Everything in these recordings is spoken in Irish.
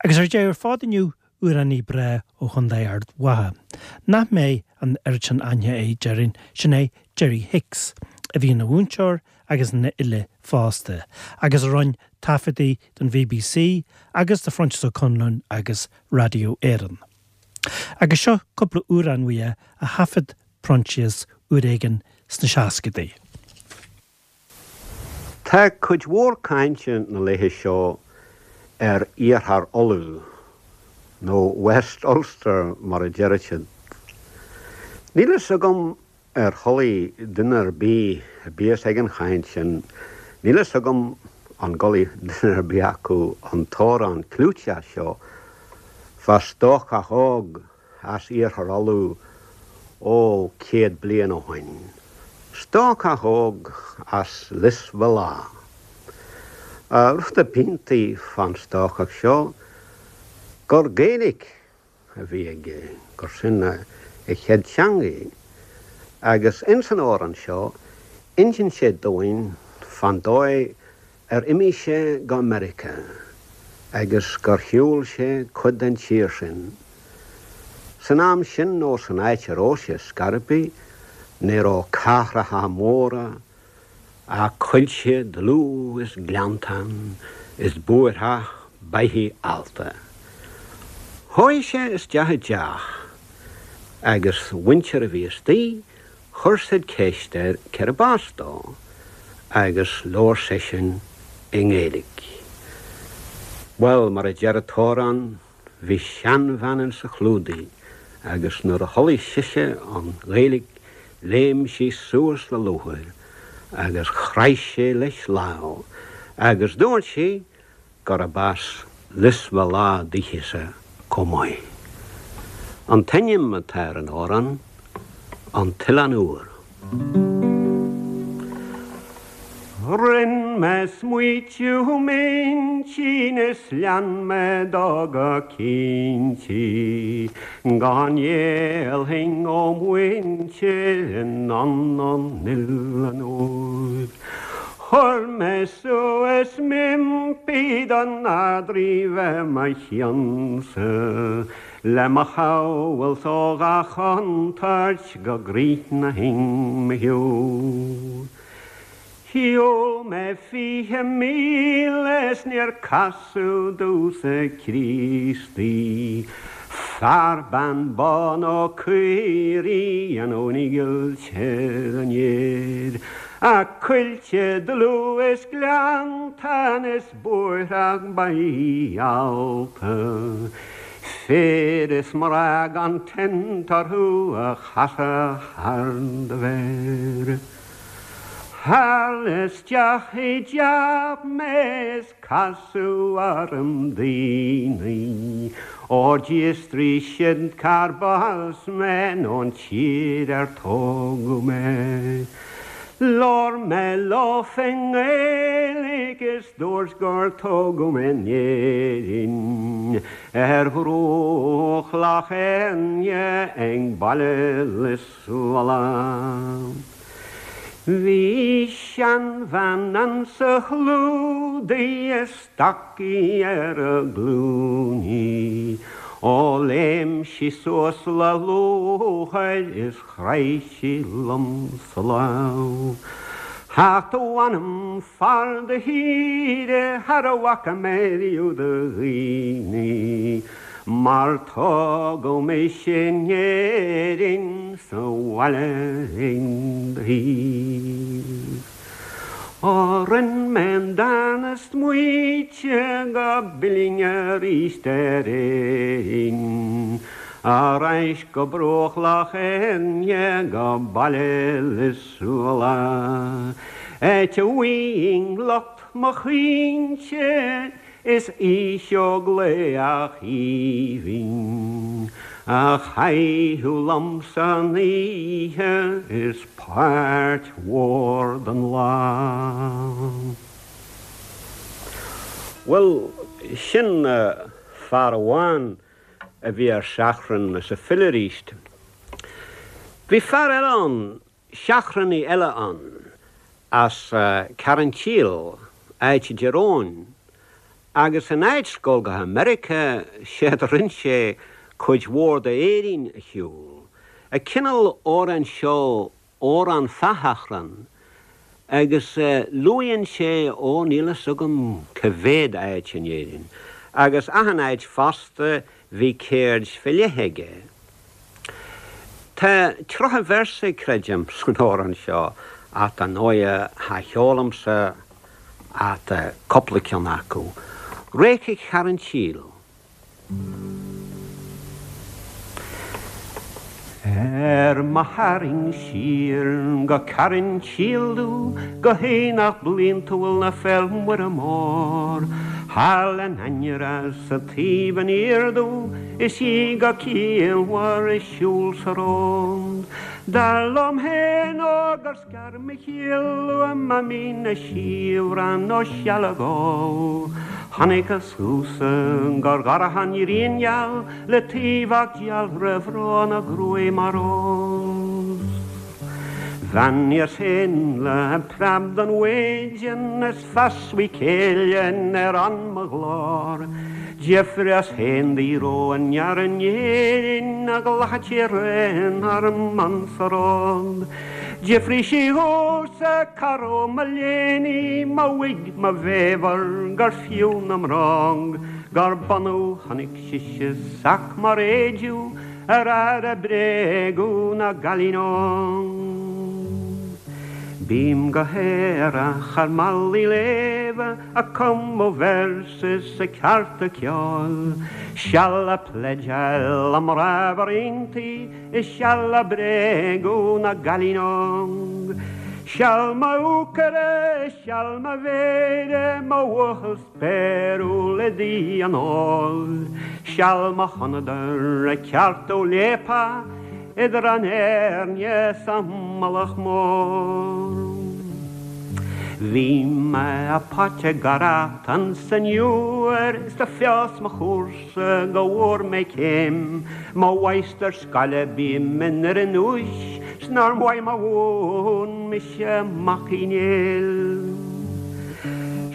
Agus ar deireadh ar fad inniu, amhránaí breá ó Chontae Ard Mhacha, nach mbeidh an oiread sin aithne air, déarfainn, sin é Jerry Hicks, a bhí ina mhúinteoir agus ina fhile fosta, agus a rinne taifeadtaí don BBC agus do Phroinsias Ó Conluain agus Raidió Éireann. Agus seo cúpla amhrán uaidh a thaifead Proinsias uair éigin sna seascadaí. Tá cuid mhór cainte na laetha seo ar Iarthar Uladh, nó West Ulster mar a deirid siad. Níl fhios agam ar chualaidh duine ar bith a bíos ag an chaint sin, níl fhios agam an gcualaidh duine ar bith acu an t-amhrán clúiteach seo fá stócach óg as Iarthar Uladh, ó, 100 bliain ó shoin. Stócach óg as Lios Mheala. Rud a b'iontaí fán stócach seo gur Gaeilic a bhí aige, gur sin a chéad teangaidh. Agus ins an amhrán seo, insíonn sé dúinn fán dóigh ar imigh sé go Meiriceá agus gur shiúil sé cuid den tír sin. San am sin nó san áit a raibh sé scor ar bith, ní raibh cathracha móra ach coillte dlúth is gleanntán is bóithreach beithígh allta. Chuaigh sé isteach i dteach agus mhuintir a bhí istigh Chuir said ceist air cérb as dó agus labhair seisean i nGaeilge. Bhuel, mar a deir an t-amhrán, bhí seanbhean insa chlúdaigh agus nuair a chualaidh sise an Ghaeilge léim sí suas le lúcháir agus chraith sí leis lámh agus dúirt sí gurb as Lios Mheala daoithi-sa chomh maith. An t-ainm atá ar an amhrán, An tOileán Úr. Rinn mé smaoitiú m'intinn is lean mé dó go cinnte go ngéillfinn ó mhuintir anonn an Oileáin Úir. Chuir mé suas m'impí don Ard-Rí bheith mo chionn-sa, le mo shabhailt ó gach contúirt go gcríochnóinn mo shiúl. Shiúil mé 20 míle is níor casadh domhsa Críostaí, fear, bean, bó nó caoirigh anonn i gcoillte an fhéir. Ach coillte dlúth is gleanntán is bóithreach beithígh allta, fir is mná gan tint orthu a chasadh thar do mhéir. Tharla isteach i dteach mé is Casadh orm daoine, ó d'fhiosraigh siad cárb as mé nó an tír ar tógadh mé. Labhair mé leofa i nGaeilge is dúirt gur tógadh mé in Éirinn, ar bhruach Loch Éirne ag baile Lios Mheala. Bhí seanbhean ansa chlúdaigh is stocaí ar a glúiní. Ó léim sí suas le lúcháir is chraith sí liomsa lámh. Ach mh'anam fear do thíre char bhfaca mé riamh do dhaoine mar tógadh mise in Éirinn sa bhaile ag do thaobh. Ó rinn mé an darna smaoiteadh go bpillfinn aríst ar Éirinn, ar ais go bruach Loch Éirne go baile Lios Mheala, áit a bhfaighinn lucht mo chaointe Is oíche óg laoch aoibhinn a chaitheadh liomsa an oíche is páirt mhór den lá. Bhuel, sin fear amháin a bhí ar seachrán is a phill aríst. Bhí fear eile ann Seachránaí eile ann, as Carrantíl, áit i dTír Eoghain. Agus in áit goil go hAmerica, séard a rinn sé cuid mhór d'Éirinn a shiúl. An cineál amhráin seo, amhrán fá thachrán, agus luaigheann sé, ó níl fhios agam cá mhéad áit in Éirinn, agus achan áit fosta bhí ceird fé leith aige. Tá 30 véarsa, creidim, san amhrán seo, ach dar ndóighe cha cheolaimse ach cúpla ceann acu. Réice Charn tSíl. Ar mo tharraing siar go Carn tSíl domh go haonach bliantúil na Féil' Muire Mór, Thall in ainneara sa taobh aniar domh is í go ciallmhar ag siúl sa rond. Dar liom féin ó gur Scar mo chiall uaim a mín a siabhrán ó sealg ól. Chonaiceas thusa gur dhorcha an ghrian gheal le taobhach dealramh óna gruaig mar rós. Bheannaíos féin le preab den mhaidin is feas mhaith céille ar fhonn mo ghlór. D'fhiafraíos féin di raibh an fhear in Éirinn a ghlacfadh sí réim orm ansa rud. D'fhiafraigh sí dhomhsa cá raibh mo léiní, mo wig, mo bhéabhar, gur fiú na mbróg, gur bunadh chonaic sise sac mar éideadh ar fhear a bréagadh na gcailín óg. Bím go haerach ar malaí léimhe a cumadh véarsa is a ceárta ceoil, seal a pledgeáil a mná iontaí, Is seal a bréagadh na gcailín óg. Seal mo úcaire, seal mo mhéire, mo bhuachaill spéiriúil i dtaobh an óil. Seal mo chonadar ag ceartú léapa idir an Éirne 's an Mullach Mór. Bhí mé a póit ag garracht ansan Iúr is do fios mo chúrsa. Go bhfuair mé céim mo mháistir scoile bím i nDoire an Úis 's nár mhaith mo mhún mise Mac Uí Néill.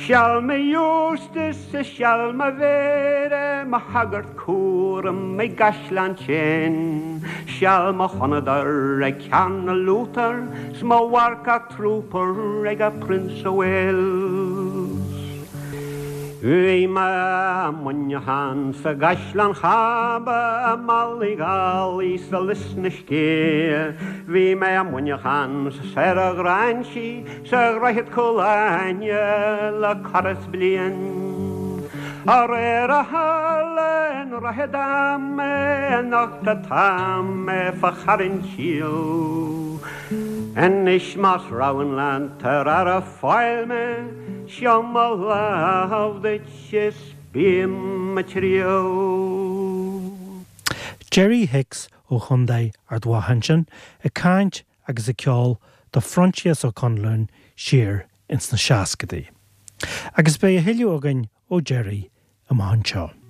Seal mo Eustace is seal mo Mhéire mo shagart cúraim i gCaisleán tSéin seal mo chonadar ag Cearnal Luther 's mo mharcach trooper ag a Prince of Wales. Bhí mé i Muineachán sa gCaisleán Chába i mBallygally sa Lios na Scéithe. Bhí mé i Muineachán 's ar a Ghráinsí sa Dhroichead Cúil Aithne le corradh is bliain. Aréir a tharla i nDroichead Ime anocht atá mé fá Charn tSíl. Anois más roghain leat ar aire fáil mé, Seo mo lámh duit is bím ag triall. Gerry Hicks ó Chontae Ard Mhacha ansin ag caint agus ag ceol do Phroinsias Ó Conluain siar ins na seascadaí. Agus beidh a thuilleadh againn ó Gerry amach anseo.